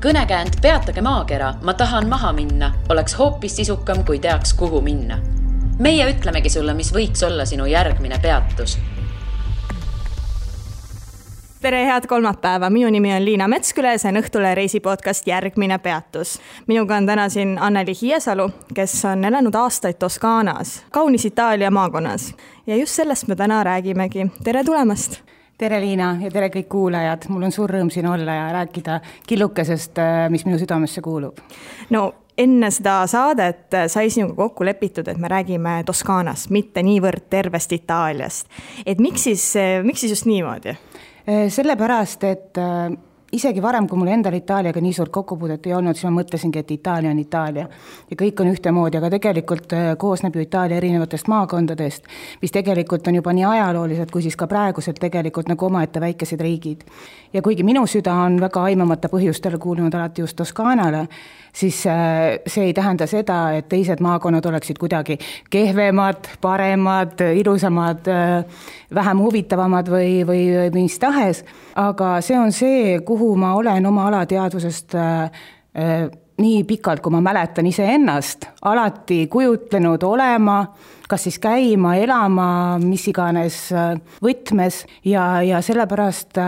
Kõnekäänd Peatage maakera, ma tahan maha minna, oleks hoopis sisukam, kui teaks, kuhu minna. Meie ütlemegi sulle, mis võiks olla sinu järgmine peatus. Tere, head kolmapäeva. Minu nimi on Liina Metsküle, see on Õhtule reisipodcast Järgmine peatus. Minuga on täna siin Anneli Hiiesalu, kes on elanud aastaid Toskaanas, kaunis Itaalia maakonnas. Ja just sellest me täna räägimegi. Tere tulemast! Tere Liina ja tere kõik kuulajad. Mul on suur rõõm siin olla ja rääkida killukesest, mis minu südamesse kuulub. No, enne seda saadet sai sinuga kokku lepitud, et me räägime Toskaanast, mitte niivõrd tervest Itaaliast. Et miks siis just niimoodi? Sellepärast, et isegi varem, kui mul endal Itaaliaga nii suurt kokkupuudet ei olnud, siis ma mõtlesingi, et Itaalia on Itaalia ja kõik on ühtemoodi, aga tegelikult koosneb ju Itaalia erinevatest maakondadest, mis tegelikult on juba nii ajaloolised, kui siis ka praeguselt tegelikult nagu omaette väikesed riigid. Ja kuigi minu süda on väga aimamata põhjustel kuulunud alati just Toskaanale, siis see ei tähenda seda, et teised maakonnad oleksid kuidagi kehvemad, paremad, ilusamad, vähem huvitavamad või mis tahes, aga see on see, kuhu ma olen oma alateadvusest nii pikalt, kui ma mäletan iseennast, alati kujutlenud olema, kas siis käima, elama, mis iganes võtmes ja sellepärast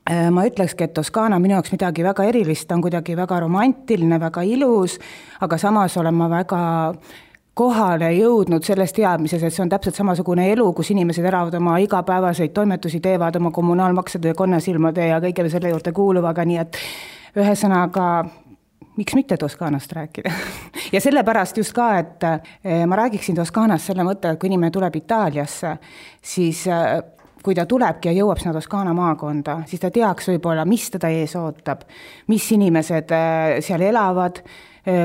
ma ütlekski, et Toskaana minu jaoks midagi väga erilist, on kuidagi väga romantiline, väga ilus, aga samas olen ma väga kohale jõudnud sellest teadmises, et see on täpselt samasugune elu, kus inimesed elavad oma igapäevaseid toimetusi, teevad oma kommunaalmaksede ja konnasilmade ja kõige selle juurde kuuluvaga, nii et ühesõnaga, miks mitte Toskaanast rääkida? Ja sellepärast just ka, et ma räägiksin Toskaanast selle mõtte, et kui inimene tuleb Itaaliasse, siis kui ta tulebki ja jõuab sinna Toskaana maakonda, siis ta teaks võib-olla, mis teda ees ootab, mis inimesed seal elavad,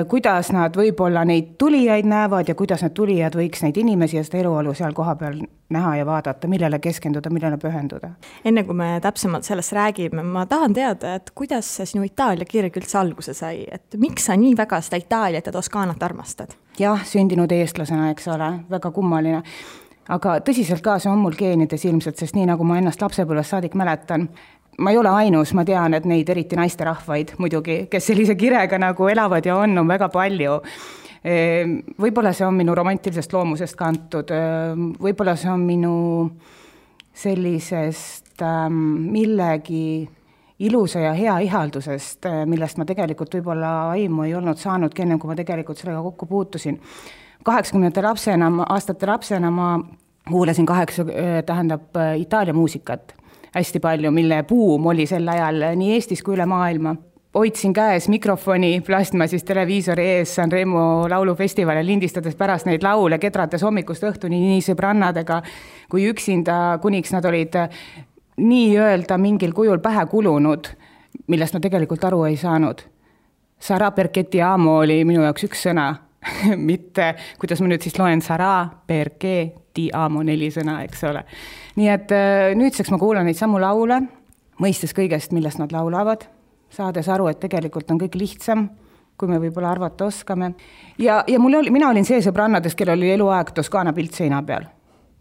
kuidas nad võib-olla neid tulijaid näevad ja kuidas need tulijad võiks neid inimesi ja seda eluolu seal koha peal näha ja vaadata, millele keskenduda, millele pühenduda. Enne kui me täpsemalt sellest räägime, ma tahan teada, et kuidas sinu Itaalia kirg üldse alguse sai, et miks sa nii väga seda Itaaliat ja Toskaanat armastad? Jah, sündinud eestlasena, eks ole, väga kummaline. Aga tõsiselt ka see on mul geenides ilmselt, sest nii nagu ma ennast lapsepõlvest saadik mäletan, ma ei ole ainus, ma tean, et neid eriti naisterahvaid muidugi, kes sellise kirega nagu elavad ja on väga palju. Võib-olla see on minu romantilisest loomusest kantud, võib-olla see on minu sellisest millegi ilusa ja hea ihaldusest, millest ma tegelikult võib-olla aimu ei olnud saanudki enne, kui ma tegelikult sellega kokku puutusin. 80. aastate lapsena ma kuulasin Itaalia muusikat hästi palju, mille buum oli sel ajal nii Eestis kui üle maailma. Hoidsin käes mikrofoni, plasma siis televiisori ees Sanremo laulufestivali lindistades pärast neid laule, kedrates hommikust õhtuni nii sõbrannadega kui üksinda, kuniks nad olid nii öelda mingil kujul pähe kulunud, millest ma tegelikult aru ei saanud. Sarà perché ti amo oli minu jaoks üks sõna. Mitte, kuidas ma nüüd siis loen Sarà perché ti amo 4 sõna, eks ole. Nii et nüüdseks ma kuulan neid samu laule, mõistes kõigest, millest nad laulavad, saades aru, et tegelikult on kõik lihtsam, kui me võib-olla arvata oskame. Ja mina olin see sõbrannades, kellel oli eluaeg Toskaana pilt seina peal.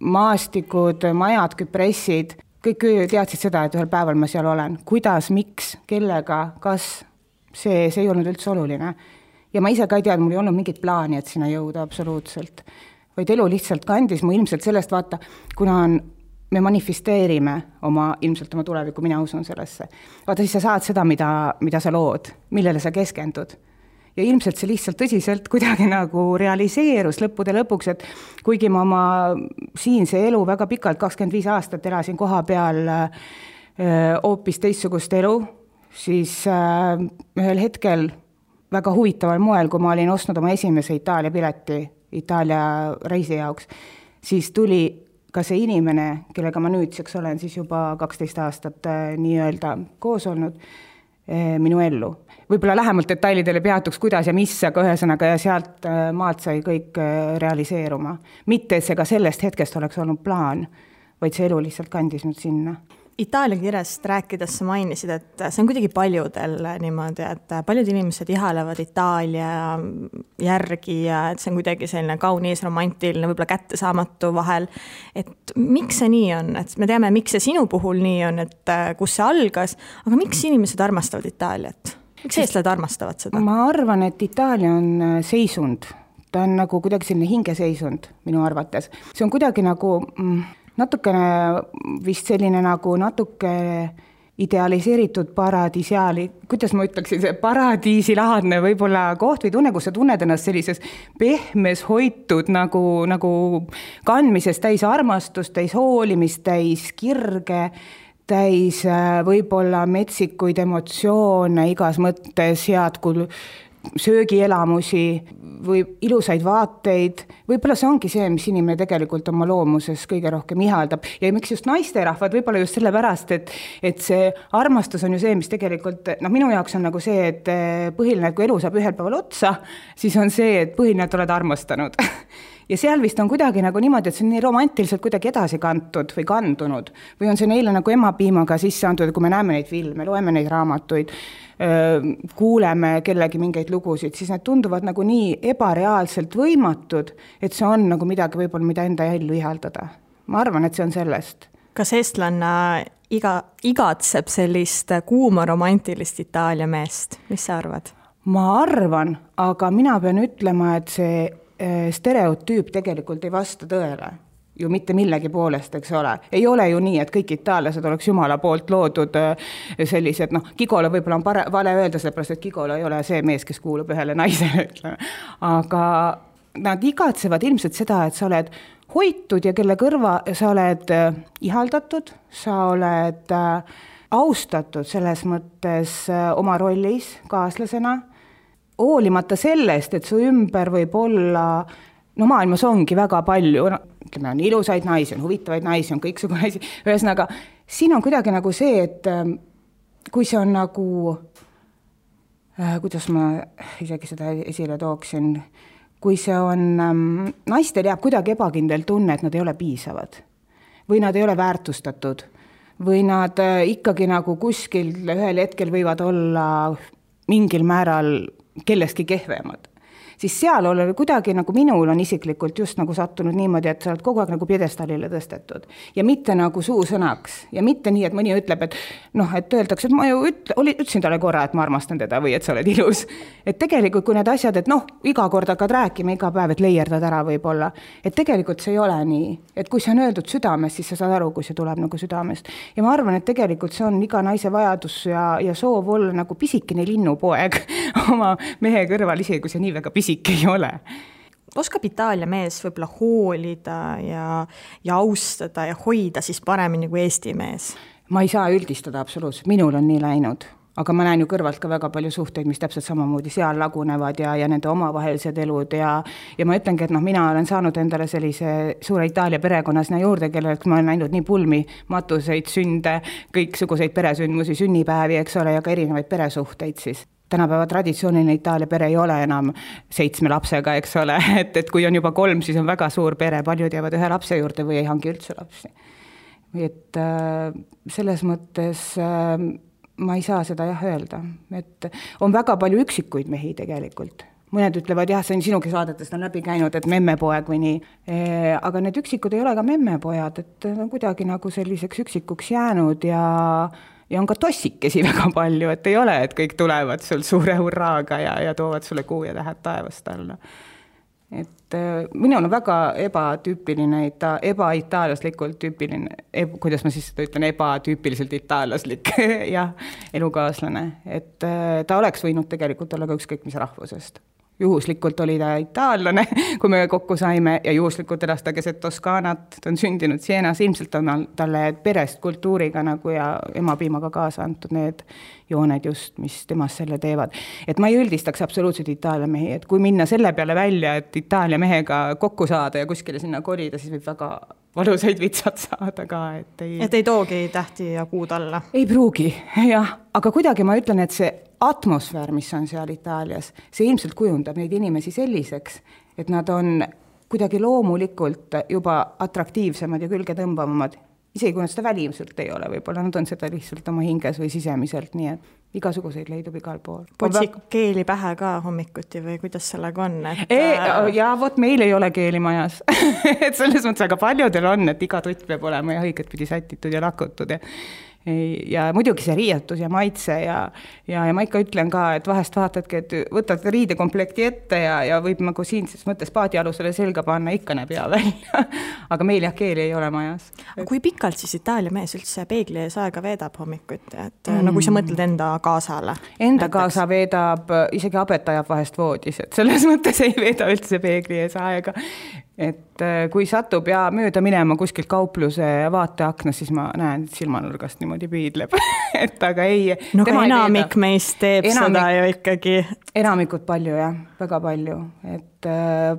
Maastikud, majad, küpressid, kõik teadsid seda, et ühel päeval ma seal olen. Kuidas, miks, kellega, kas, see ei olnud üldse oluline. Ja ma ise ka ei teadnud, mul ei olnud mingit plaani, et sinna jõuda absoluutselt. Vaid elu lihtsalt kandis mu ilmselt sellest vaata, kuna me manifesteerime ilmselt oma tulevikku, mina usun sellesse. Vaata, siis sa saad seda, mida sa lood, millele sa keskendud. Ja ilmselt see lihtsalt tõsiselt kuidagi nagu realiseerus lõppude lõpuks, et kuigi ma oma siinse elu väga pikalt, 25 aastat elasin koha peal hoopis teistsugust elu, siis ühel hetkel väga huvitaval moel, kui ma olin ostnud oma esimese Itaalia pileti Itaalia reisi jaoks, siis tuli ka see inimene, kellega ma nüüdseks olen siis juba 12 aastat nii-öelda koos olnud, minu ellu. Võib-olla lähemalt detailidele peatuks, kuidas ja mis, aga ühesõnaga ja sealt maalt sai kõik realiseeruma. Mitte, et see ka sellest hetkest oleks olnud plaan, vaid see elu lihtsalt kandis nüüd sinna. Itaalia kirjast rääkides sa mainisid, et see on kuidagi paljudel niimoodi, et paljud inimesed ihalevad Itaalia järgi ja et see on kuidagi selline kaunis, romantiline, võib-olla kättesaamatu vahel. Et miks see nii on? Et me teame, miks see sinu puhul nii on, et kus see algas, aga miks inimesed armastavad Itaaliat? Miks eestlased armastavad seda? Ma arvan, et Itaalia on seisund. Ta on nagu kuidagi selline hingeseisund minu arvates. See on kuidagi nagu natukene vist selline nagu natuke idealiseeritud paradiisiaali, kuidas ma ütleksin, see paradiisilaadne võib-olla koht või tunne, kus sa tunned ennast sellises pehmes, hoitud nagu kandmises täis armastust, täis hoolimist, täis kirge, täis võib-olla metsikuid emotsioone igas mõttes, head söögielamusi või ilusaid vaateid. Võib-olla see ongi see, mis inimene tegelikult oma loomuses kõige rohkem ihaldab. Ja miks just naisterahvad, võib-olla just sellepärast, et see armastus on ju see, mis tegelikult, minu jaoks on nagu see, et põhiline, et kui elu saab ühel päeval otsa, siis on see, et põhiline, et oled armastanud. Ja seal vist on kuidagi nagu niimoodi, et see on nii romantiliselt kuidagi edasi kantud või kandunud. Või on see neile nagu emapiimaga sisse antud, kui me näeme neid filme, loeme neid raamatuid, kuuleme kellegi mingeid lugusid, siis need tunduvad nagu nii ebareaalselt võimatud, et see on nagu midagi võib-olla, mida enda ellu ihaldada. Ma arvan, et see on sellest. Kas eestlanna igatseb sellist kuuma romantilist Itaalia meest? Mis sa arvad? Ma arvan, aga mina pean ütlema, et see stereotüüp tegelikult ei vasta tõele. Ju mitte millegi poolest, eks ole. Ei ole ju nii, et kõik itaallased oleks Jumala poolt loodud sellised, Gigolo võib-olla on vale öelda, sellepärast, et Gigolo ei ole see mees, kes kuulub ühele naisele, ütleme. Aga nad igatsevad ilmselt seda, et sa oled hoitud ja kelle kõrva sa oled ihaldatud, sa oled austatud selles mõttes oma rollis kaaslasena, hoolimata sellest, et su ümber võib olla, maailmas ongi väga palju, ütleme, on ilusaid naisi, on huvitavaid naisi, on kõiksugu naisi, ühesõnaga, siin on kuidagi nagu see, et kui see on nagu, kuidas ma isegi seda esile tooksin, kui see on, naistel jääb kuidagi ebakindel tunne, et nad ei ole piisavad või nad ei ole väärtustatud või nad ikkagi nagu kuskil ühel hetkel võivad olla mingil määral kellestki kehvemad. Siis seal ole kuidagi nagu minul on isiklikult just nagu sattunud niimoodi, et sa oled kogu aeg nagu pjedestaalile tõstetud. Ja mitte nagu suusõnaks. Ja mitte nii, et mõni ütleb, et et öeldakse, et ma ju ütlesin talle korra, et ma armastan teda või et sa oled ilus. Et tegelikult kui need asjad, et iga kord hakkad rääkima, iga päev, et leierdad ära võib-olla. Et tegelikult see ei ole nii. Et kui see on öeldud südamest, siis sa saad aru, kui see tuleb nagu südamest. Ja ma arvan, et tegelikult see on iga naise vajadus ja soov olla nagu pisikene linnupoeg oma mehe kõrval, isegi kui see nii väga pisik ei ole. Oskab Itaalia mees võib-olla hoolida ja austada ja hoida siis paremini kui Eesti mees? Ma ei saa üldistada absoluutselt, minul on nii läinud. Aga ma näen ju kõrvalt ka väga palju suhteid, mis täpselt samamoodi seal lagunevad ja nende omavahelised elud ja ma ütlengi, et mina olen saanud endale sellise suure Itaalia perekonna sinna juurde, kellelt ma olen näinud nii pulmi, matuseid, sünde, kõiksuguseid peresündmusi, sünnipäevi, eks ole, ja ka erinevaid peresuhteid siis. Tänapäeva traditsiooniline Itaalia pere ei ole enam 7 lapsega, eks ole, et kui on juba 3, siis on väga suur pere, paljud jäävad 1 lapse juurde või ei hangi üldse lapsi. Et selles mõttes ma ei saa seda öelda, et on väga palju üksikuid mehi tegelikult. Mõned ütlevad, see on sinugi saadetest on läbi käinud, et memmepoeg või nii, aga need üksikud ei ole ka memmepojad, et on kuidagi nagu selliseks üksikuks jäänud ja on ka tossikesi väga palju, et ei ole, et kõik tulevad sul suure hurraaga ja toovad sulle kuu ja tähed taevast alla. Et minul on väga ebatüüpiline, ebaitaallaslikult tüüpiline, kuidas ma siis seda ütlen, ebatüüpiliselt itaallaslik elukaaslane. Et ta oleks võinud tegelikult olla ka ükskõik mis rahvusest. Juhuslikult oli ta itaallane, kui me kokku saime ja juhuslikult elas ta keset Toskaanat, ta on sündinud Sienas, ilmselt on talle perest kultuuriga nagu ja emapiimaga kaasa antud need jooned just, mis temast selle teevad. Et ma ei üldistaks absoluutselt Itaalia mehi, et kui minna selle peale välja, et Itaalia mehega kokku saada ja kuskile sinna kolida, siis võib väga valusaid vitsad saada ka. Et ei toogi tähti ja kuud alla? Ei pruugi, jah. Aga kuidagi ma ütlen, et see atmosfäär, mis on seal Itaalias, see ilmselt kujundab neid inimesi selliseks, et nad on kuidagi loomulikult juba atraktiivsemad ja külge tõmbavamad. Isegi kui nad seda välimselt ei ole, võib-olla nad on seda lihtsalt oma hinges või sisemiselt, nii et igasuguseid leidub igal pool. Potsik keeli pähe ka hommikuti või kuidas sellega on? Ja vot meil ei ole keeli majas. Et selles mõttes aga paljudel on, et iga tutt peab olema ja õiget pidi sätitud ja lakutud. ja muidugi see riietus ja maitse ja ma ikka ütlen ka, et vahest vaatadki, et võtad riidekomplekti ette ja võib nagu siinses mõttes paadialusele selga panna, ikka näeb hea välja. Aga meil jah keeli ei ole majas. Kui pikalt siis Itaalia mees üldse peegli ees aega veedab hommikuti, et no kui sa mõtled enda kaasale? Enda kaasa veedab, isegi abet ajab vahest voodis, et selles mõttes ei veeda üldse peegli ees aega. Et kui satub ja mööda minema kuskilt kaupluse vaateaknas, siis ma näen, et silmanurgast niimoodi piidleb. Et aga ei... No ka enamik meist teeb seda ju ikkagi. Enamikud palju jah, väga palju. Et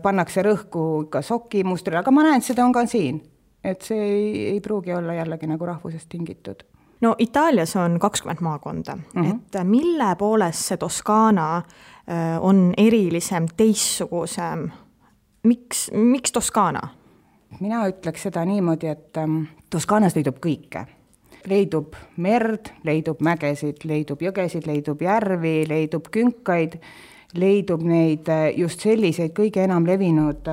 pannakse rõhku ka soki mustrile, aga ma näen, et seda on ka siin. Et see ei pruugi olla jällegi nagu rahvusest tingitud. No Itaalias on 20 maakonda, et mille poolest see Toskaana on erilisem, teissugusem? Miks Toskaana? Mina ütleks seda niimoodi, et Toskaanas leidub kõike. Leidub merd, leidub mägesid, leidub jõgesid, leidub järvi, leidub künkaid, leidub neid just selliseid kõige enam levinud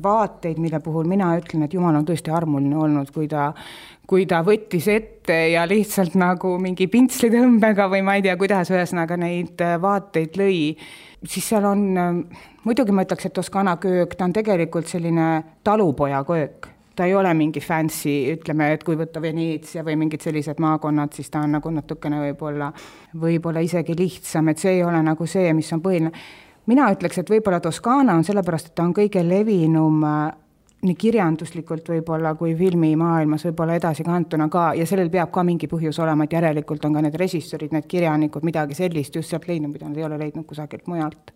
vaateid, mille puhul mina ütlen, et Jumal on tõesti armuline olnud, kui ta võttis ette ja lihtsalt nagu mingi pintslitõmbega või ma ei tea, kuidas ühesõnaga neid vaateid lõi, siis seal on, muidugi ma ütleks, et Toskaana köök, ta on tegelikult selline talupoja köök. Ta ei ole mingi fancy, ütleme, et kui võtta Veneetsia või mingid sellised maakonnad, siis ta on nagu natukene võib-olla isegi lihtsam, et see ei ole nagu see, mis on põhiline. Mina ütleks, et võib-olla Toskaana on sellepärast, et ta on kõige levinum nii kirjanduslikult võib-olla kui filmimaailmas võib-olla edasi kantuna ka ja sellel peab ka mingi põhjus olema, et järelikult on ka need režissöörid, need kirjanikud, midagi sellist just sealt leidnud, mida nad ei ole leidnud kusagilt mujalt.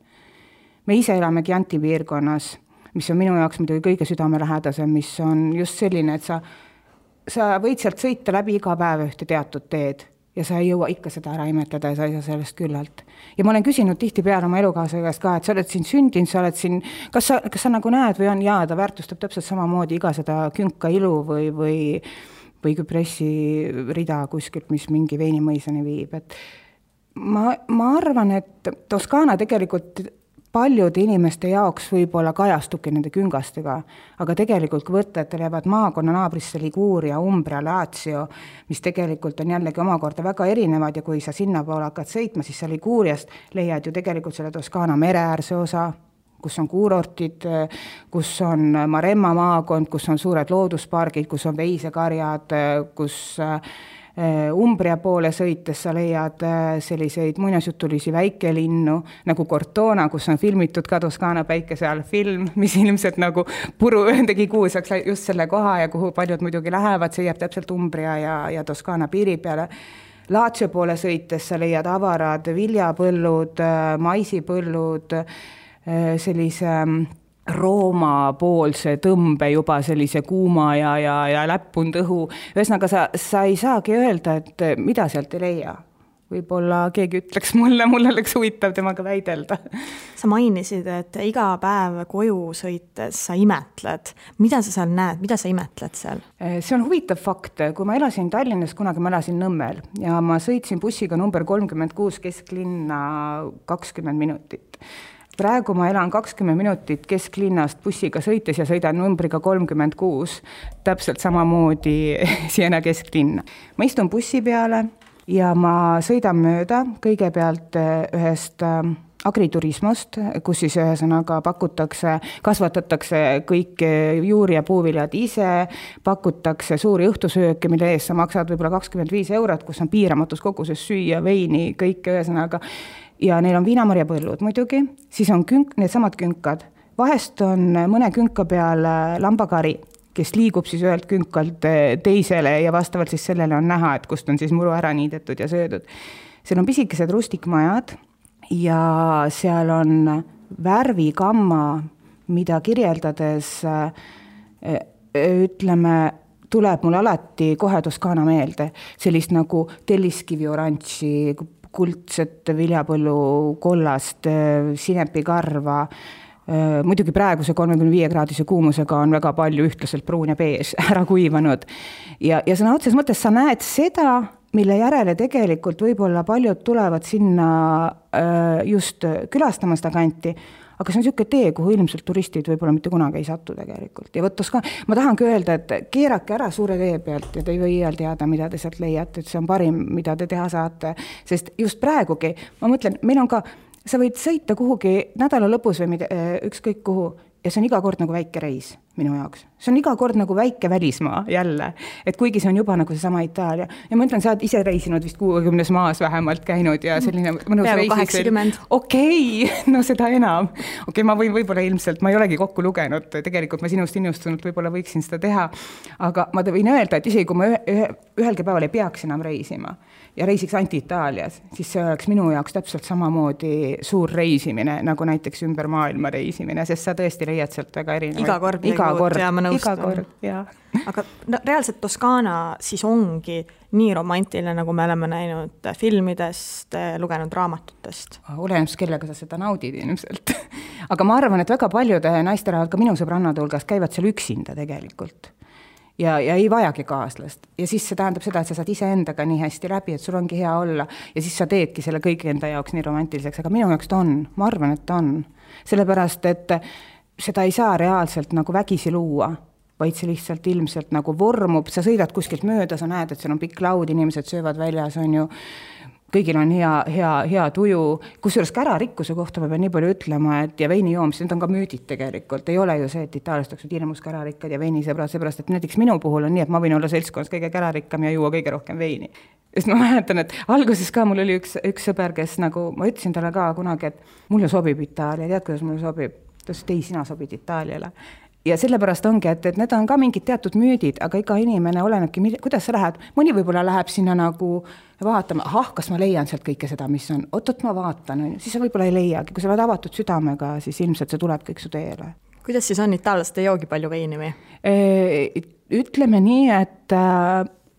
Me ise elame Chianti piirkonnas, mis on minu jaoks muidugi kõige südamelähedasem, mis on just selline, et sa võid sealt sõita läbi iga päev ühte teatud teed ja sa ei jõua ikka seda ära imetleda ja sa ei saa sellest küllalt. Ja ma olen küsinud tihtipeale oma elukaaslase käest ka, et sa oled siin sündinud, sa oled siin, kas sa nagu näed või on, jaa, ta väärtustab täpselt samamoodi iga seda künka ilu või küpressi rida kuskilt, mis mingi veinimõisani viib. Et ma arvan, et Toskaana tegelikult paljude inimeste jaoks võib-olla kajastubki nende küngastega, aga tegelikult kui võtted jäävad maakonna naabrisse Liguria, Umbria, Lazio, mis tegelikult on jällegi omakorda väga erinevad ja kui sa sinna poole hakkad sõitma, siis sa Liguriast leiad ju tegelikult selle Toskaana mereäärse osa, kus on kuurortid, kus on Maremma maakond, kus on suured looduspargid, kus on veisekarjad, kus Umbria poole sõites sa leiad selliseid muinasjutulisi väikelinnu nagu Cortona, kus on filmitud ka Toskaana päikese all film, mis ilmselt nagu puru tegi kuulsaks just selle koha ja kuhu paljud muidugi lähevad, see jääb täpselt Umbria ja Toskaana piiri peale. Lazio poole sõites sa leiad avarad viljapõllud, maisipõllud, sellise Rooma poolse tõmbe juba sellise kuuma ja läppunud õhu. Ühesõnaga sa ei saagi öelda, et mida sealt ei leia. Võib-olla keegi ütleks mulle oleks huvitav temaga väidelda. Sa mainisid, et iga päev koju sõites sa imetled. Mida sa seal näed? Mida sa imetled seal? See on huvitav fakt. Kui ma elasin Tallinnas, kunagi ma elasin Nõmmel ja ma sõitsin bussiga number 36 kesklinna 20 minutit. Praegu ma elan 20 minutit kesklinnast bussiga sõites ja sõidan numbriga 36, täpselt samamoodi Siena kesklinna. Ma istun bussi peale ja ma sõidan mööda kõigepealt ühest agriturismost, kus siis ühesõnaga kasvatatakse kõik juuri ja puuviljad ise, pakutakse suuri õhtusööke, mille eest sa maksad võib-olla 25 €, kus on piiramatus koguses süüa, veini, kõik ühesõnaga. Ja neil on viinamarjapõllud muidugi, siis on need samad künkad. Vahest on mõne künka peal lambakari, kes liigub siis ühelt künkalt teisele ja vastavalt siis sellele on näha, et kust on siis muru ära niidetud ja söödud. Seal on pisikesed rustikmajad ja seal on värvikamma, mida kirjeldades ütleme, tuleb mul alati kohe Toskaana meelde. Sellist nagu telliskivi oranži, kuldset viljapõllu kollast, sinepikarva. Muidugi praeguse 35-kraadise kuumusega on väga palju ühtlaselt pruun ja bees ära kuivanud. Ja sõna otses mõttes sa näed seda, mille järele tegelikult võib-olla paljud tulevad sinna just külastama seda kanti, aga see on niisugune tee, kuhu ilmselt turistid võib-olla mitte kunagi ei satu tegelikult. Ja võttes ka, ma tahangi öelda, et keerake ära suure tee pealt ja te ei või iial teada, mida te sealt leiate, et see on parim, mida te teha saate. Sest just praegugi, ma mõtlen, meil on ka, sa võid sõita kuhugi nädala lõpus või ükskõik kuhu, ja see on iga kord nagu väike reis minu jaoks. See on iga kord nagu väike välismaa jälle, et kuigi see on juba nagu seesama Itaalia. Ja ma ütlen, sa oled ise reisinud vist 60 maas vähemalt käinud ja selline mõnus peaaegu 80. Okei, no seda enam. Okei, ma võin võib-olla ilmselt, ma ei olegi kokku lugenud, tegelikult ma sinust innustunult võib-olla võiksin seda teha, aga ma võin öelda, et isegi kui ma ühelgi päeval ei peaks enam reisima ja reisiks Anti-Itaalias, siis see oleks minu jaoks täpselt samamoodi suur reisimine, nagu näiteks ümber maailma reisimine, sest sa tõesti leiad sealt väga erinevaid. Iga kord, ja ma nõustun. Aga no, reaalselt Toskaana siis ongi nii romantiline, nagu me oleme näinud filmidest, lugenud raamatutest. Olenemaks, kellega sa seda naudid ilmselt. Aga ma arvan, et väga paljude naisterahvad, ka minu sõbrannade hulgas, käivad seal üksinda tegelikult. Ja ei vajagi kaaslast. Ja siis see tähendab seda, et sa saad iseendaga nii hästi läbi, et sul ongi hea olla ja siis sa teedki selle kõigi enda jaoks nii romantiliseks, aga minu jaoks ta on, ma arvan, et ta on. Sellepärast, et seda ei saa reaalselt nagu vägisi luua, vaid see lihtsalt ilmselt nagu vormub, sa sõidad kuskilt mööda, sa näed, et seal on pikk laud, inimesed söövad väljas, on ju, kõigil on hea tuju, kusjuures kärarikkuse kohta ma pean nii palju ütlema, et ja veini joomis, need on ka müüdid tegelikult, ei ole ju see, et Itaaliast oleks hirmus kärarikkad ja veinisõbrad, seepärast, et näiteks minu puhul on nii, et ma võin olla seltskonnas kõige kärarikkam ja juua kõige rohkem veini. Sest ma mäletan, et alguses ka mul oli üks sõber, kes nagu, ma ütlesin talle ka kunagi, et mulle sobib Itaalia, tead, kuidas mulle sobib? Ta ütles, et ei, sina sobid Itaaliale. Ja sellepärast ongi, et need on ka mingid teatud müüdid, aga iga inimene olenebki, kuidas sa lähed. Mõni võib-olla läheb sinna nagu vaatama, kas ma leian sealt kõike seda, mis on. Oot, ma vaatan, siis sa võib-olla ei leiagi. Kui sa oled avatud südamega, siis ilmselt see tuleb kõik su teele. Kuidas siis on itaallased, ei joogi palju veini või? Ütleme nii, et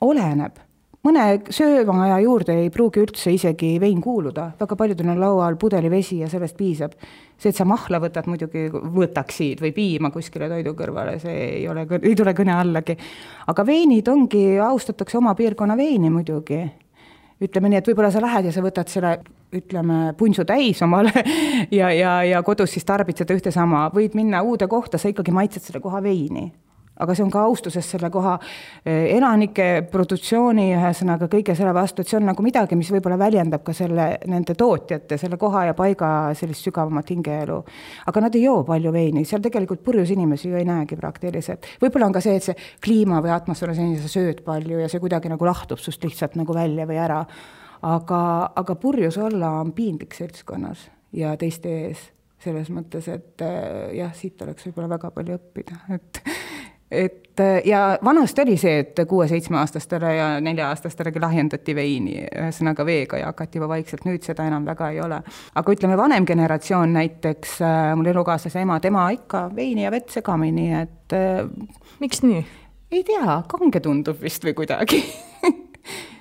oleneb. Mõne söömaja juurde ei pruugi üldse isegi vein kuuluda. Väga paljudel on laual pudeli vesi ja sellest piisab. See, et sa mahla võtad, muidugi võtaksid või piima kuskile toidu kõrvale, see ei tule kõne allagi. Aga veinid ongi, austatakse oma piirkonna veini muidugi. Ütleme nii, et võib-olla sa lähed ja sa võtad selle, ütleme, punsu täis omale ja kodus siis tarbid seda ühte sama. Võid minna uude kohta, sa ikkagi maitsed selle koha veini. Aga see on ka austuses selle koha elanike produktsiooni ühesõnaga kõige selle vastu, et see on nagu midagi, mis võib-olla väljendab ka nende tootjate, selle koha ja paiga sellist sügavamat hingeelu. Aga nad ei joo palju veini, seal tegelikult purjus inimesi ju ei näegi praktiliselt. Võib-olla on ka see, et see kliima või atmosfääri sa sööd palju ja see kuidagi nagu lahtub sust lihtsalt nagu välja või ära. Aga purjus olla on piinlik seltskonnas ja teiste ees selles mõttes, et jah, siit oleks võib-olla väga palju õppida, ja vanast oli see, et 6-7-aastastele ja 4-aastastelegi lahjendati veini, ühesõnaga veega ja hakati juba vaikselt, nüüd seda enam väga ei ole. Aga ütleme, vanem generatsioon näiteks, mul elukaaslase ema, tema ikka veini ja vett segamini, et miks nii? Ei tea, kange tundub vist või kuidagi.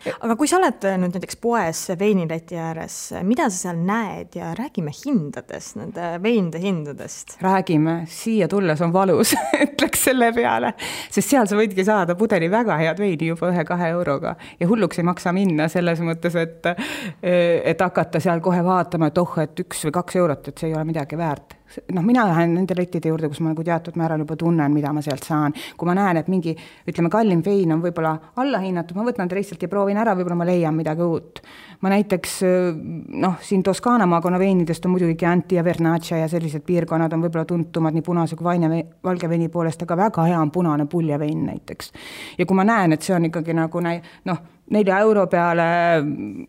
Aga kui sa oled nüüd näiteks poes veinileti ääres, mida sa seal näed ja räägime hindadest, nende veinide hindadest? Räägime, siia tulles on valus, ütleks selle peale, sest seal sa võidki saada pudeli väga head veini juba 1-2 euroga ja hulluks ei maksa minna selles mõttes, et hakata seal kohe vaatama, et et 1 või 2 eurot, et see ei ole midagi väärt. Mina lähen nende lettide juurde, kus ma nagu teatud määral juba tunnen, mida ma sealt saan. Kui ma näen, et mingi, ütleme, kallim vein on võib-olla allahinnatud, ma võtan lihtsalt ja proovin ära, võib-olla ma leian midagi uut. Ma näiteks, siin Toskaana maakonna veinidest on muidugi Chianti ja Vernaccia ja sellised piirkonnad on võib-olla tuntumad nii punase kui valge veini poolest, aga väga hea on punane puljavein näiteks. Ja kui ma näen, et see on ikkagi nagu 4 euro peale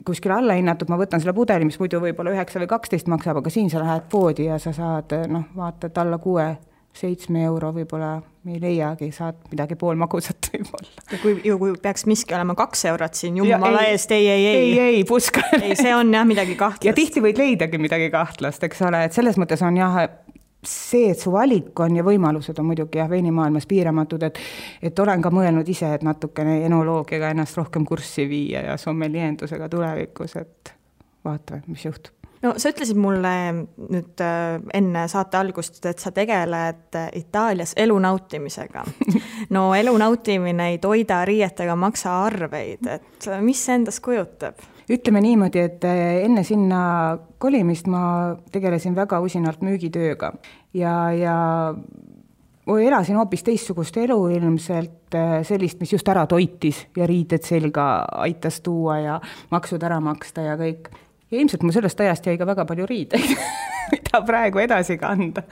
kuskil alla hinnatud, ma võtan selle pudeli, mis muidu võib-olla 9 või 12 maksab, aga siin sa lähed poodi ja sa saad, vaatad alla 6-7 euro võib-olla me ei leiagi, saad midagi poolmagusat võib-olla. Ja kui peaks miski olema 2 eurot siin, jumala eest, ei, puska. Ei, see on jah midagi kahtlast. Ja tihti võid leidagi midagi kahtlast, eks ole, et selles mõttes on jah, see, et su valik on ja võimalused on muidugi veinimaailmas piiramatud, et olen ka mõelnud ise, et natukene enoloogiaga ennast rohkem kurssi viia ja sommeliendusega tulevikus, et vaatame, mis juhtub. No sa ütlesid mulle nüüd enne saate algust, et sa tegeled Itaalias elu nautimisega. No elu nautimine ei toida riietega maksa arveid, et mis see endast kujutab? ütleme niimoodi, et enne sinna kolimist ma tegelesin väga usinalt müügitööga ja elasin hoopis teistsugust elu ilmselt, sellist, mis just ära toitis ja riided selga aitas tuua ja maksud ära maksta ja kõik. Ja ilmselt mul sellest ajast jäi ka väga palju riideid, mida praegu edasi kanda.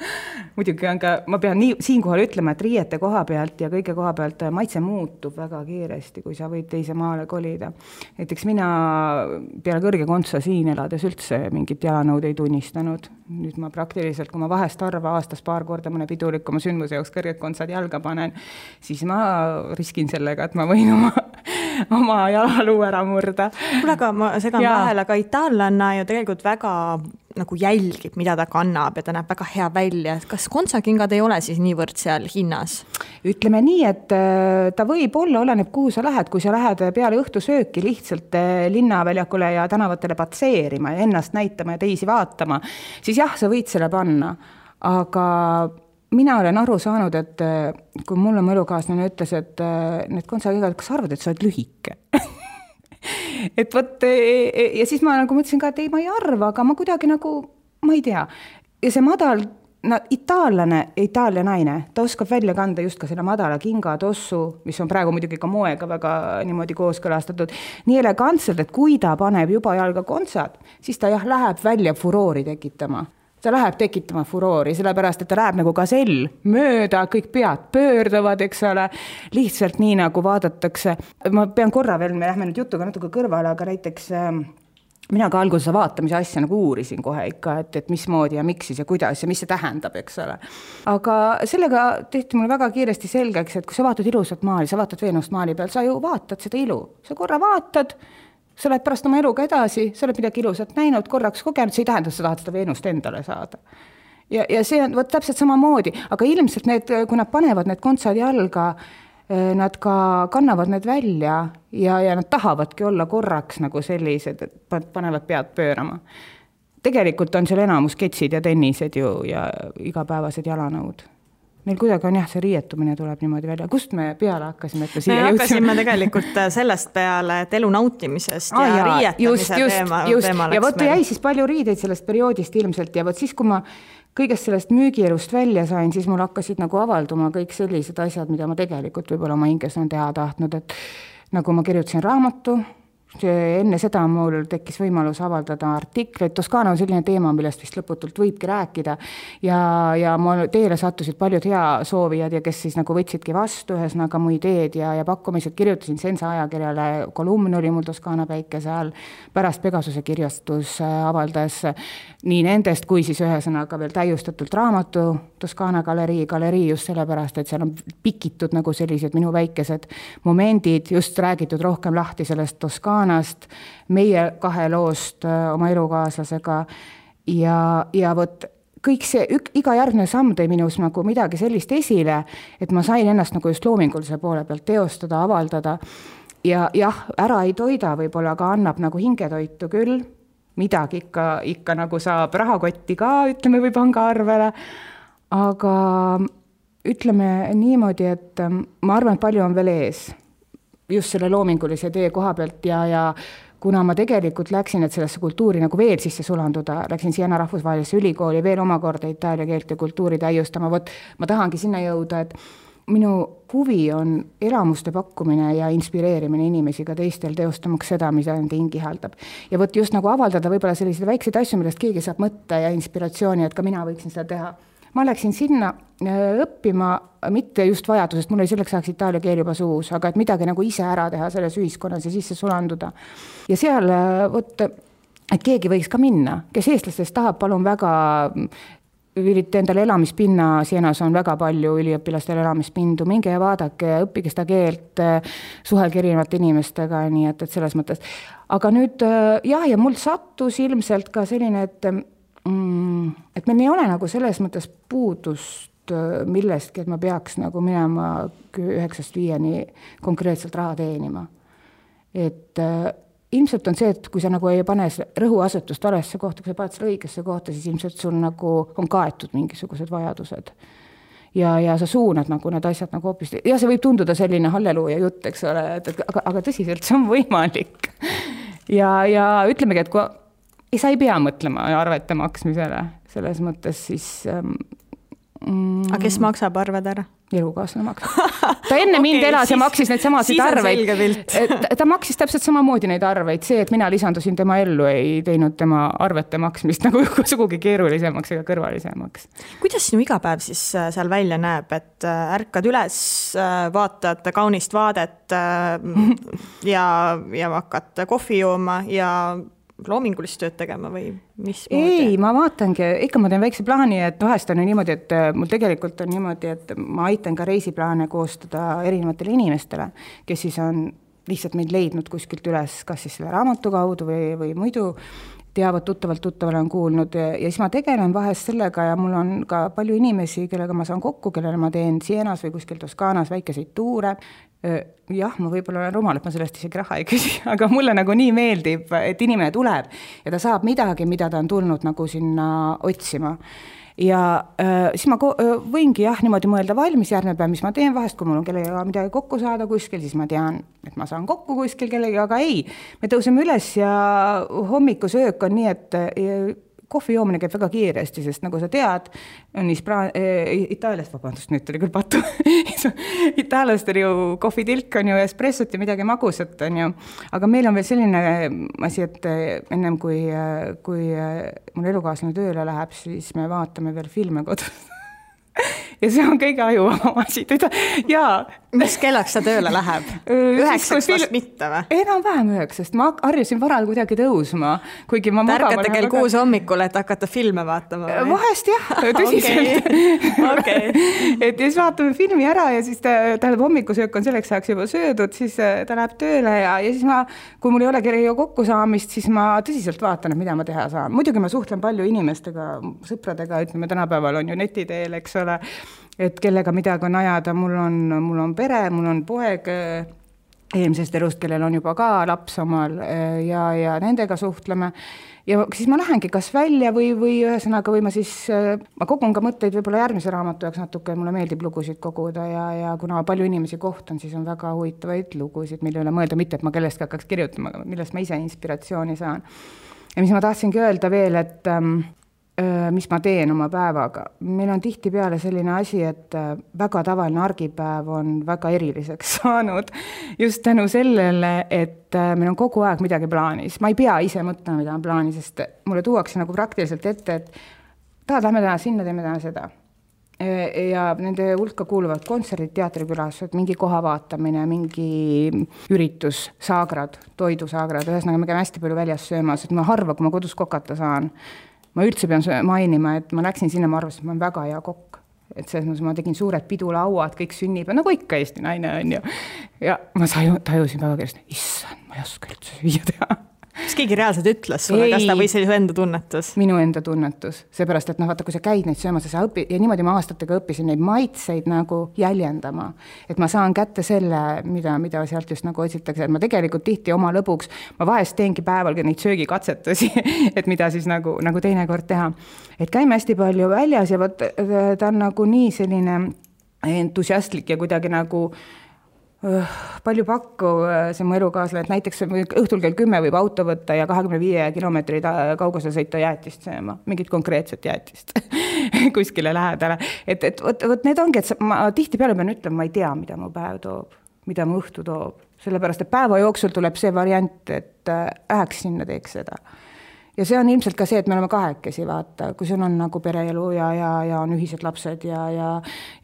Muidugi on ka, ma pean siinkohal ütlema, et riiete koha pealt ja kõige koha pealt maitse muutub väga kiiresti, kui sa võid teise maale kolida. Näiteks mina peale kõrge kontsa siin elades üldse mingit jalanõud ei tunnistanud. Nüüd ma praktiliselt, kui ma vahest harva aastas paar korda mõne pidulikuma sündmuse jaoks kõrged kontsad jalga panen, siis ma riskin sellega, et ma võin oma jalaluu ära murda. Kuule, aga ma segan vahel, aga itaallanna ju tegelikult väga nagu jälgib, mida ta kannab ja ta näeb väga hea välja. Kas kontsakingad ei ole siis niivõrd seal hinnas? Ütleme nii, et ta võib olla, oleneb kuhu sa lähed, kui sa lähed peale õhtusööki lihtsalt linnaväljakule ja tänavatele patseerima ja ennast näitama ja teisi vaatama, siis jah, sa võid selle panna, aga mina olen aru saanud, et kui mulle mu elukaaslane ütles, et need kontsakingad, kas arvad, et sa oled lühike? Et võt, ja siis ma nagu mõtlesin ka, et ei, ma ei arva, aga ma kuidagi nagu, ma ei tea. Ja see madal, Itaalia naine, ta oskab välja kanda just ka selle madala kinga tossu, mis on praegu muidugi ka moega väga niimoodi kooskõlastatud, nii elegantselt, et kui ta paneb juba jalga kontsad, siis ta läheb välja furoori tekitama. Ta läheb tekitama furoori, sellepärast, et ta läheb nagu gasell mööda, kõik pead pöörduvad, eks ole, lihtsalt nii nagu vaadatakse. Ma pean korra veel, me lähme nüüd jutuga natuke kõrvale, aga näiteks mina ka alguses vaatamise asja nagu uurisin kohe ikka, et mismoodi ja miks siis ja kuidas ja mis see tähendab, eks ole. Aga sellega tehti mulle väga kiiresti selgeks, et kui sa vaatad ilusat maali, sa vaatad Veenust maali peal, sa ju vaatad seda ilu. Sa korra vaatad, sa oled pärast oma eluga edasi, sa oled midagi ilusat näinud, korraks kogenud, see ei tähenda, et sa tahad seda Veenust endale saada. Ja see on täpselt samamoodi, aga ilmselt need, kui nad panevad need kontsad jalga, nad ka kannavad need välja ja nad tahavadki olla korraks nagu sellised, et panevad pead pöörama. Tegelikult on seal enamus ketsid ja tennised ju ja igapäevased jalanõud. Meil kuidagi on see riietumine tuleb niimoodi välja. Kust me peale hakkasime? Me hakkasime tegelikult sellest peale, et elu nautimisest ja riietamise teema läks meil. Ja võt jäi siis palju riideid sellest perioodist ilmselt ja võt siis, kui ma kõigest sellest müügielust välja sain, siis mul hakkasid nagu avalduma kõik sellised asjad, mida ma tegelikult võib-olla oma hinges on teha tahtnud, et nagu ma kirjutasin raamatu, enne seda mul tekkis võimalus avaldada artikleid. Toskaana on selline teema, millest vist lõputult võibki rääkida ja mul teele sattusid paljud hea soovijad ja kes siis nagu võtsidki vastu ühesõnaga mu ideed ja pakkumised. Kirjutasin Sensa ajakirjale, kolumn oli mul Toskaana päikese all, pärast Pegasuse kirjastus avaldas nii nendest kui siis ühesõnaga veel täiustatult raamatu Toskaana galerii just sellepärast, et seal on pikitud nagu sellised minu väikesed momendid, just räägitud rohkem lahti sellest Toskaanast, meie kahe loost oma elukaaslasega ja võt kõik see, iga järgmine samm tõi minus nagu midagi sellist esile, et ma sain ennast nagu just loomingulise poole pealt teostada, avaldada ja jah, ära ei toida võib-olla, aga annab nagu hingetoitu küll, midagi ikka nagu saab rahakotti ka, ütleme või pangaarvele, aga ütleme niimoodi, et ma arvan, et palju on veel ees just selle loomingulise tee koha pealt ja kuna ma tegelikult läksin, et sellesse kultuuri nagu veel sisse sulanduda, läksin Siena rahvusvahelisse ülikooli veel omakorda itaalia keelt ja kultuuri täiustama, ma tahangi sinna jõuda, et minu huvi on elamuste pakkumine ja inspireerimine inimesi ka teistel teostamaks seda, mida nende hingi haldab. Ja võt just nagu avaldada võib-olla selliseid väikseid asju, millest keegi saab mõtte ja inspiratsiooni, et ka mina võiksin seda teha. Ma läksin sinna õppima mitte just vajadusest, mul oli selleks ajaks itaalia keel juba suus, aga et midagi nagu ise ära teha selles ühiskonnas ja sisse sulanduda. Ja seal, et keegi võiks ka minna, kes eestlastest tahab, palun väga ülite endale elamispinna, Sienas on väga palju üliõpilastel elamispindu, minge ja vaadake, õppige seda keelt, suhelge erinevate inimestega, nii et selles mõttes. Aga nüüd, ja mul sattus ilmselt ka selline, et meil ei ole nagu selles mõttes puudust millestki, et ma peaks nagu minema 9-5 konkreetselt raha teenima. Et ilmselt on see, et kui sa nagu ei pane rõhuasetust valesse kohta, kui sa paned selle õigesse kohta, siis ilmselt sul nagu on kaetud mingisugused vajadused. Ja sa suunad nagu need asjad nagu hoopis. Ja see võib tunduda selline halleluuja jutt, eks ole, aga tõsiselt see on võimalik. ja ütlemegi, et kui sa ei pea mõtlema arvete maksmisele, selles mõttes siis aga kes maksab arved ära? Elukaaslane maksab. Ta enne mind elas ja maksis neid samasid arveid. Ta maksis täpselt samamoodi neid arveid. See, et mina lisandusin tema ellu, ei teinud tema arvete maksmist nagu sugugi keerulisemaks ega kõrvalisemaks. Kuidas sinu igapäev siis seal välja näeb, et ärkad üles, vaatad kaunist vaadet ja hakkad kohvi jooma ja loomingulist tööd tegema või mis? Ei, ma vaatangi, ikka ma teen väikse plaani, et vahest on niimoodi, et mul tegelikult on niimoodi, et ma aitan ka reisiplaane koostada erinevatele inimestele, kes siis on lihtsalt meid leidnud kuskilt üles, kas siis selle raamatu kaudu või muidu teavad tuttavale on kuulnud ja siis ma tegelen vahest sellega ja mul on ka palju inimesi, kellega ma saan kokku, kellele ma teen Sienas või kuskil Toskaanas väikeseid tuure. Jah, ma võib-olla olen rumal, et ma sellest isegi raha ei küsi, aga mulle nagu nii meeldib, et inimene tuleb ja ta saab midagi, mida ta on tulnud nagu sinna otsima. Ja siis ma võingi niimoodi mõelda valmis järgmine päev, mis ma teen vahest, kui mul on kellega midagi kokku saada kuskil, siis ma tean, et ma saan kokku kuskil kellega, aga ei, me tõuseme üles ja hommikusöök on nii, et kohvi joomine käib väga kiiresti, sest nagu sa tead, on Itaaliast, vabandust, nüüd tuli küll patu, itaallastel ju kohvitilk on ju espressot ja midagi magusat on ju, aga meil on veel selline asi, et ennem kui mul elukaaslane tööle läheb, siis me vaatame veel filme kodus. Ja see on kõige ajuvama asi. Mis kellaks ta tööle läheb? 9 vast mitte või? Enam-vähem 9, ma harjusin varal kuidagi tõusma. Kuigi ma tärkate kell 6 hommikul, et hakata filme vaatama või? Vahest jah, tõsiselt. Okay. Et siis vaatame filmi ära ja siis tähendab hommikusöök on selleks ajaks juba söödud, siis ta läheb tööle ja siis kui mul ei ole kellega kokku saamist, siis ma tõsiselt vaatan, et mida ma teha saan. Muidugi ma suhtlen palju inimestega, sõpradega, ütleme tänapäeval on ju netiteel, eks ole, et kellega midagi on ajada, mul on pere, mul on poeg eelmisest elust, kellel on juba ka laps omal ja nendega suhtleme. Ja siis ma lähengi kas välja või ühesõnaga või ma kogun ka mõtteid võib-olla järgmise raamatu jaoks natuke, mulle meeldib lugusid koguda ja kuna palju inimesi kohtan, siis on väga huvitavaid lugusid, mille üle mõelda, mitte et ma kellestki hakkaks kirjutama, millest ma ise inspiratsiooni saan. Ja mis ma tahtsingi öelda veel, et mis ma teen oma päevaga. Meil on tihtipeale selline asi, et väga tavaline argipäev on väga eriliseks saanud just tänu sellele, et meil on kogu aeg midagi plaanis. Ma ei pea ise mõtlema, mida on plaanis, sest mulle tuuakse nagu praktiliselt ette, et lähme täna sinna, teeme täna seda. Ja nende hulka kuuluvad kontserdid, teatrikülastused, mingi koha vaatamine, mingi üritus, saagrad, toidusaagrad, ühesõnaga me käime hästi palju väljas söömas, et ma harva, kui ma kodus kokata saan. Ma üldse pean mainima, et ma läksin sinna, ma arvasin, et ma olen väga hea kokk. Et selles ma tegin suured pidulauad, kõik sünnib, nagu ikka Eesti naine on ju. Ja ma tajusin väga keresti, issand, ma ei oska üldse süüa teha. Kas keegi reaalselt ütles sulle, kas ta või see enda tunnetus? Minu enda tunnetus, seepärast, et vaata, kui sa käid neid söömas, sa õpid, ja niimoodi ma aastatega õppisin neid maitseid nagu jäljendama, et ma saan kätte selle, mida sealt just nagu otsitakse, et ma tegelikult tihti oma lõbuks, ma vahest teengi päeval neid söögikatsetusi, et mida siis nagu teinekord teha. Et käime hästi palju väljas ja ta on nagu nii selline entusiastlik ja kuidagi nagu palju pakku see mu elukaaslane, et näiteks õhtul kell 10 võib auto võtta ja 25 kilomeetri kaugusel sõita jäätist sööma, mingit konkreetset jäätist kuskile lähedale. Et need ongi, et ma tihtipeale pean ütlema, ma ei tea, mida mu päev toob, mida mu õhtu toob, sellepärast, et päeva jooksul tuleb see variant, et läheks sinna, teeks seda. Ja see on ilmselt ka see, et me oleme kahekesi, vaata, kui sul on nagu pereelu ja on ühised lapsed ja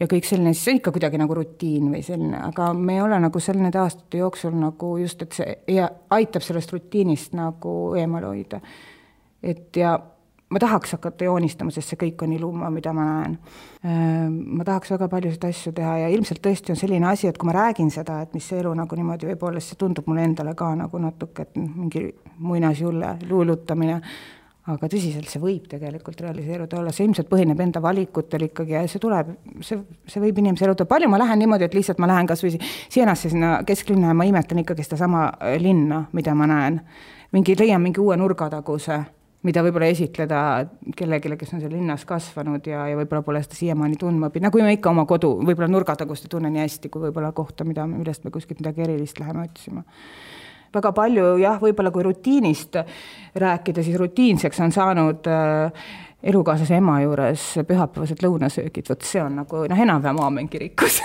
kõik selline, siis on ikka kuidagi nagu rutiin või selline, aga me ei ole nagu selle nende aastate jooksul nagu just, et see aitab sellest rutiinist nagu eemale hoida. Et ja ma tahaks hakata joonistama, sest see kõik on iluma, mida ma näen. Ma tahaks väga palju seda asju teha ja ilmselt tõesti on selline asi, et kui ma räägin seda, et mis see elu nagu niimoodi võib olla, see tundub mulle endale ka nagu natuke, et mingi muinasjulle luulutamine, aga tõsiselt see võib tegelikult realiseeruda olla. See ilmselt põhineb enda valikutel ikkagi ja see võib inimese eluda. Palju ma lähen niimoodi, et lihtsalt ma lähen kas või Sienasse sinna kesklinna ja ma imetan ikkagi seda sama linna, mida ma näen. Leian mingi uue nurgataguse, mida võib-olla esitleda kellelegi, kes on seal linnas kasvanud ja võib-olla pole seda siiamaani tundma. Nagu me ikka oma kodu, võib-olla nurgatagust ei tunne nii hästi, kui võib-olla kohta, millest me kuskilt midagi erilist läheme otsima. väga palju jah, võib-olla kui rutiinist rääkida, siis rutiinseks on saanud elukaaslase ema juures pühapäevased lõunasöögid, võt see on nagu enam-vähem aamen kirikus.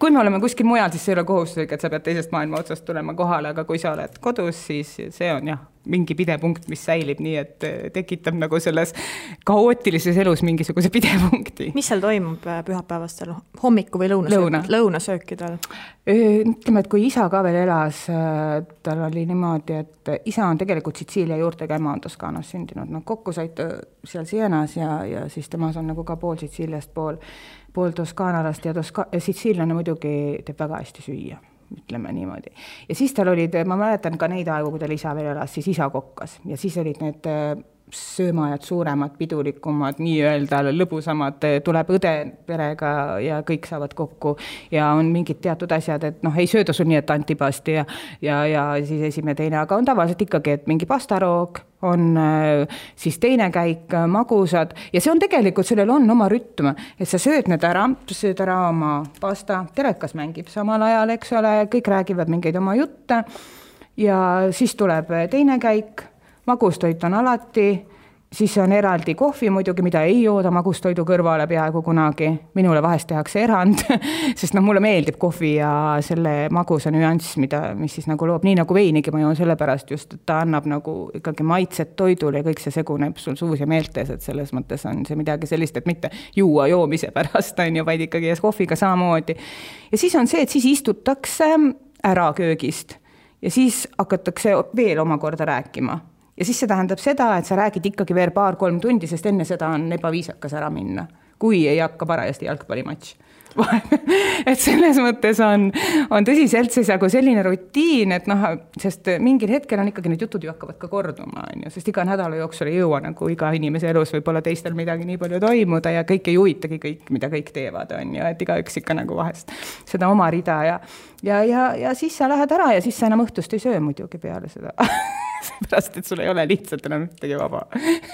Kui me oleme kuskil mujal, siis see ei ole kohustuslik, et sa pead teisest maailma otsast tulema kohale, aga kui sa oled kodus, siis see on jah, mingi pidepunkt, mis säilib nii, et tekitab nagu selles kaootilises elus mingisuguse pidepunkti. Mis seal toimub pühapäevastel hommiku või lõunasöökidel? Ütleme, et kui isa ka veel elas, tal oli niimoodi, et isa on tegelikult Sitsiilia juurtega, ema on Toskaanas sündinud. No, kokku said seal Sienas ja siis temas on nagu ka pool Sitsiiliast, pool Toskaanalast ja Sitsiiliane muidugi teeb väga hästi süüa. Ütleme niimoodi. Ja siis tal olid, ma mäletan ka neid aegu, kui tal isa veel elas, siis isa kokkas ja siis olid need söömajad suuremad, pidulikumad, nii-öelda lõbusamad, tuleb õde perega ja kõik saavad kokku ja on mingid teatud asjad, et ei sööda sul nii, et antipasti ja siis esimene teine, aga on tavaliselt ikkagi, et mingi pastaroog, on siis teine käik, magusad ja see on tegelikult, sellel on oma rütm, et sa sööd need ära, sööd ära oma pasta, telekas mängib samal ajal, eks ole, kõik räägivad mingeid oma jutte ja siis tuleb teine käik, magustoit on alati, siis on eraldi kohvi muidugi, mida ei jooda magustoidu kõrvale peaaegu kunagi. Minule vahest tehakse erand, sest mulle meeldib kohvi ja selle magusa nüanss, mis siis nagu loob, nii nagu veinigi ma joon sellepärast just, et ta annab nagu ikkagi maitset toidule ja kõik see seguneb sul suus ja meeltes, et selles mõttes on see midagi sellist, et mitte juua joomise pärast, vaid ikkagi kohviga samamoodi. Ja siis on see, et siis istutakse ära köögist ja siis hakatakse veel omakorda rääkima. Ja siis see tähendab seda, et sa räägid ikkagi veel 2-3 tundi, sest enne seda on ebaviisakas ära minna, kui ei hakka parajasti jalgpallimatš. Et selles mõttes on tõsiselt see nagu selline rutiin, et sest mingil hetkel on ikkagi need jutud ju hakkavad ka korduma, sest iga nädala jooksul ei jõua nagu iga inimese elus võib-olla teistel midagi nii palju toimuda ja kõik ei huvitagi kõik, mida kõik teevad, et igaüks ikka nagu vahest seda oma rida ja siis sa lähed ära ja siis sa enam õhtust ei söö muidugi peale seda. Seepärast, et sul ei ole lihtsalt enam ühtegi vaba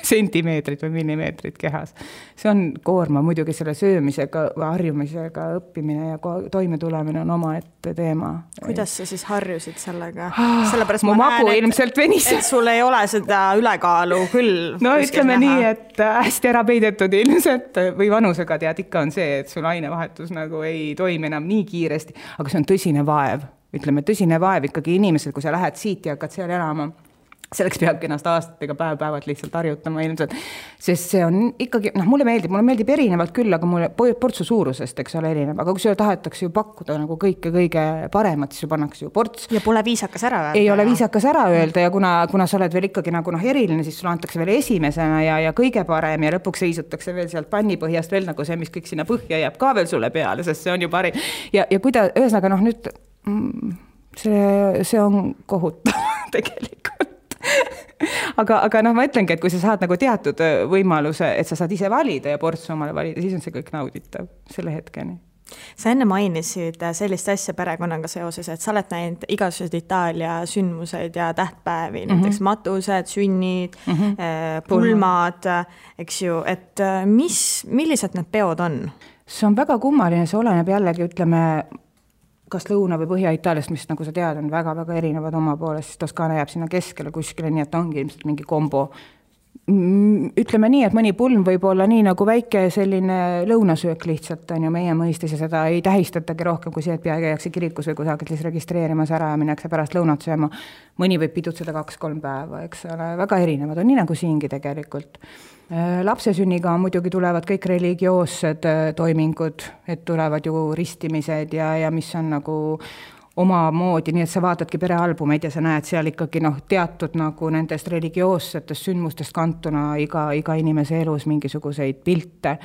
sentimeetrit või millimeetrit kehas. See on koorma muidugi selle söömisega, harjumisega õppimine ja toime tulemine on oma ette teema. Kuidas sa siis harjusid sellega? Sellepärast mu magu ilmselt venis. Et sul ei ole seda ülekaalu küll. No ütleme nii, et hästi ära peidetud ilmselt või vanusega tead ikka on see, et sul ainevahetus nagu ei toimi enam nii kiiresti, aga see on tõsine vaev. Ütleme, tõsine vaev ikkagi inimesel, kui sa lähed siit ja hakkad seal elama. Selleks peabki ennast aastatega päev-päevad lihtsalt harjutama ilmselt, sest see on ikkagi, mulle meeldib erinevalt küll, aga mulle portsu suurusest, eks ole, erinev, aga kui sulle tahetakse ju pakkuda nagu kõige paremat, siis pannakse ju ports. Ja pole viisakas ära öelda. Ei ole viisakas ära öelda ja kuna sa oled veel ikkagi nagu eriline, siis sulle antakse veel esimesena ja kõige parem ja lõpuks seisutakse veel sealt pannipõhjast veel nagu see, mis kõik sinna põhja jääb ka veel sulle peale, sest see on ju parim. Ja kui ta, ühesõnaga nüüd, see on kohutav tegelikult. aga ma ütlengi, et kui sa saad nagu teatud võimaluse, et sa saad ise valida ja portsu omale valida, siis on see kõik nauditav selle hetkeni. Sa enne mainisid sellist asja perekonnaga seoses, et sa oled näinud igasugused Itaalia sündmused ja tähtpäevi, näiteks matused, sünnid, pulmad, eks ju, et millised need peod on? See on väga kummaline, see oleneb jällegi, ütleme, kas Lõuna- või Põhja-Itaaliast, mis nagu sa tead, on väga-väga erinevad oma poolest, siis Toskaana jääb sinna keskele kuskile, nii et ongi ilmselt mingi kombo. Ütleme nii, et mõni pulm võib olla nii nagu väike selline lõunasöök lihtsalt on ju meie mõistes ja seda ei tähistatagi rohkem kui see, et peagi jääkse kirikus või kusagil siis registreerimas ära ja minnakse pärast lõunat sööma. Mõni võib pidutseda 2-3 päeva, eks ole, väga erinevad on nii nagu siingi tegelikult. Lapsesünniga muidugi tulevad kõik religioossed toimingud, et tulevad ju ristimised ja mis on nagu oma moodi, nii et sa vaatadki perealbumeid ja sa näed seal ikkagi teatud nagu nendest religioossetest sündmustest kantuna iga inimese elus mingisuguseid pilte.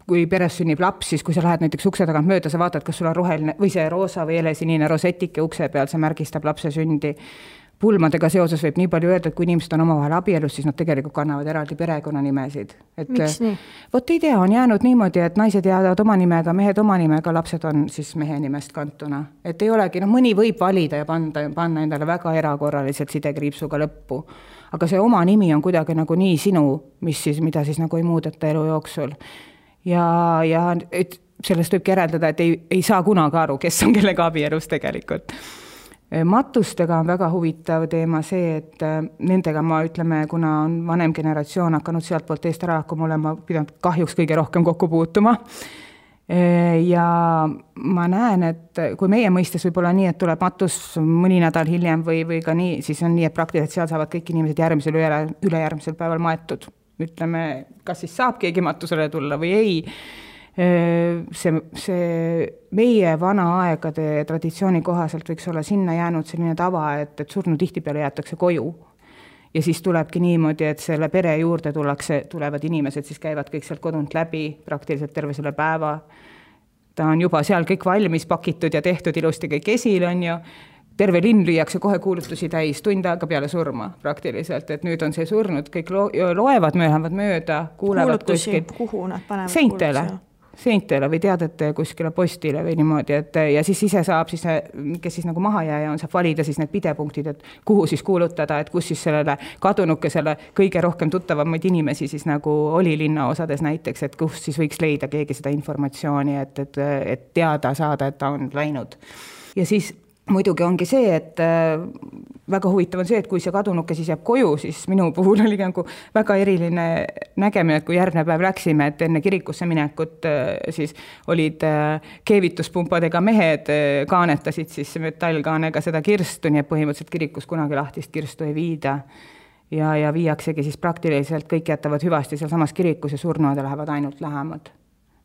Kui peres sünnib laps, siis kui sa lähed näiteks ukse tagant mööda, sa vaatad, kas sul on roheline või see roosa või helesinine rosetike ukse peal, see märgistab lapse sündi. Pulmadega seoses võib nii palju öelda, et kui inimesed on omavahel abielus, siis nad tegelikult kannavad eraldi perekonnanimesid. Miks nii? Vot ei tea, on jäänud niimoodi, et naised jäävad oma nimega, mehed oma nimega, lapsed on siis mehe nimest kantuna. Et ei olegi, mõni võib valida ja panna endale väga erakorraliselt sidekriipsuga lõppu. Aga see oma nimi on kuidagi nagu nii sinu, mida siis nagu ei muudeta elu jooksul. Ja et sellest võib järeldada, et ei saa kunagi aru, kes on kellega abielus tegelikult. Matustega on väga huvitav teema see, et nendega ma ütleme, kuna on vanem generatsioon hakanud sealt poolt eest ära hakkama olema, pidanud kahjuks kõige rohkem kokku puutuma. Ja ma näen, et kui meie mõistes võib olla nii, et tuleb matus mõni nädal hiljem või ka nii, siis on nii, et praktiliselt seal saavad kõik inimesed järgmisel ülejärgmisel päeval maetud. Ütleme, kas siis saab keegi matusele tulla või ei. See meie vana aegade traditsiooni kohaselt võiks olla sinna jäänud selline tava, et surnu tihtipeale jäetakse koju. Ja siis tulebki niimoodi, et selle pere juurde tulevad inimesed, siis käivad kõik sealt kodunt läbi praktiliselt terve selle päeva. Ta on juba seal kõik valmis pakitud ja tehtud ilusti kõik esil on ju. Terve linn lüüakse kohe kuulutusi täis, tund aega peale surma praktiliselt, et nüüd on see surnud, kõik loevad mööda, kuulevad kuskil. Kuhu nad panevad seintele või teadete kuskile postile või niimoodi, et ja siis ise saab, kes siis nagu maha jääja on, saab valida siis need pidepunktid, et kuhu siis kuulutada, et kus siis sellele kadunukesele kõige rohkem tuttavamaid inimesi siis nagu oli linnaosades näiteks, et kus siis võiks leida keegi seda informatsiooni, et teada saada, et ta on läinud. Ja siis muidugi ongi see, et väga huvitav on see, et kui see kadunuke siis jääb koju, siis minu puhul oli nagu väga eriline nägemine, et kui järgmine päev läksime, et enne kirikusse minekut siis olid keevituspumpadega mehed, kaanetasid siis metallkaanega seda kirstu, nii et põhimõtteliselt kirikus kunagi lahtist kirstu ei viida. Ja viiaksegi siis praktiliselt kõik jätavad hüvasti seal samas kirikus ja surnuade lähevad ainult lähemad.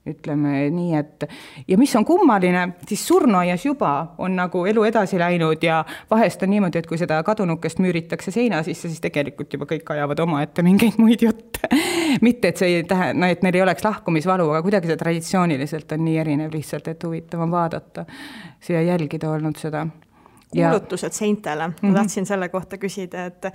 Ütleme nii, et ja mis on kummaline, siis surnuaias juba on nagu elu edasi läinud ja vahest on niimoodi, et kui seda kadunukest müüritakse seina sisse, siis tegelikult juba kõik ajavad oma ette mingeid muid jutte. Mitte, et see ei tähenda, et neil ei oleks lahkumisvalu, aga kuidagi see traditsiooniliselt on nii erinev lihtsalt, et huvitav on vaadata siia jälgida olnud seda. Kuulutused seintele. Ma tahtsin selle kohta küsida, et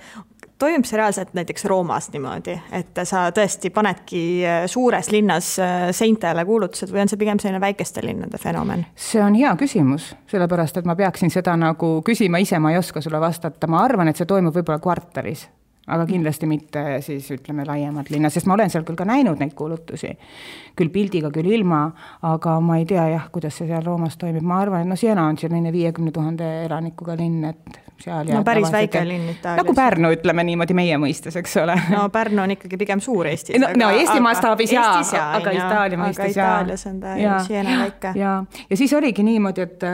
toimub see reaalselt näiteks Roomas niimoodi, et sa tõesti panedki suures linnas seintele kuulutused või on see pigem selline väikeste linnade fenomen? See on hea küsimus, sellepärast, et ma peaksin seda nagu küsima ise, ma ei oska sulle vastata. Ma arvan, et see toimub võib-olla kvartalis, aga kindlasti mitte siis ütleme laiemad linna, sest ma olen seal küll ka näinud neid kuulutusi, küll pildiga, küll ilma, aga ma ei tea kuidas see seal Roomas toimib. Ma arvan, et Siena on selline 50 000 elanikuga linn, et seal päris väike linn Itaalias. Nagu Pärnu, ütleme niimoodi meie mõistes, eks ole. No Pärnu on ikkagi pigem suur Eestis. No Eesti mastaabis aga Itaalia mõistes Itaalias on ta Siena väike. Ja siis oligi niimoodi, et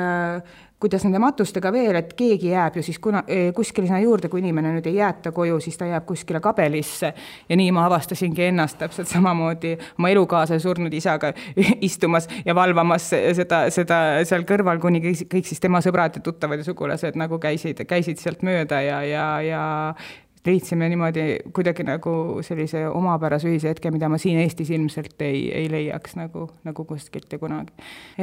kuidas nende matustega veel, et keegi jääb ju siis kuskile sinna juurde, kui inimene nüüd ei jäeta koju, siis ta jääb kuskile kabelisse ja nii ma avastasingi ennast täpselt samamoodi oma elukaasa surnud isaga istumas ja valvamas seda seal kõrval, kuni kõik siis tema sõbrad ja tuttavad ja sugulased nagu käisid sealt mööda ja leidsime niimoodi kuidagi nagu sellise omapärase ühise hetke, mida ma siin Eestis ilmselt ei leiaks nagu kuskilt ja kunagi.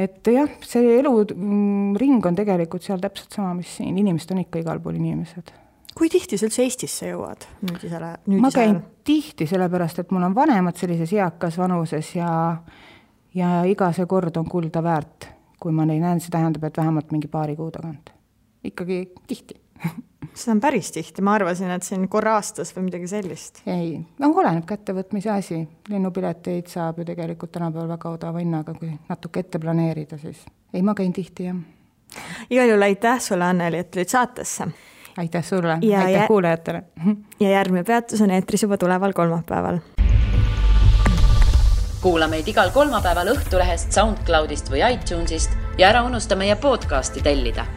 Et jah, see eluring on tegelikult seal täpselt sama, mis siin. Inimesed on ikka igal pool inimesed. Kui tihti sa üldse Eestisse jõuad? Ma käin tihti, sellepärast, et mul on vanemad sellises eakas vanuses ja iga see kord on kulda väärt. Kui ma neid näen, see tähendab, et vähemalt mingi paari kuu tagant. Ikkagi tihti. Seda on päris tihti, ma arvasin, et siin korra aastas või midagi sellist. Ei, oleneb kättevõtmise asi. Lennupileteid saab ju tegelikult tänapäeval väga odava hinnaga, kui natuke ette planeerida, siis ei, ma käin tihti, jah. Igal juhul aitäh sulle, Anneli, et tulid saatesse. Aitäh sulle, aitäh kuulajatele. Ja järgmine peatus on eetris juba tuleval kolmapäeval. Kuula meid igal kolmapäeval Õhtulehest, SoundCloudist või iTunesist ja ära unusta meie podcasti tellida.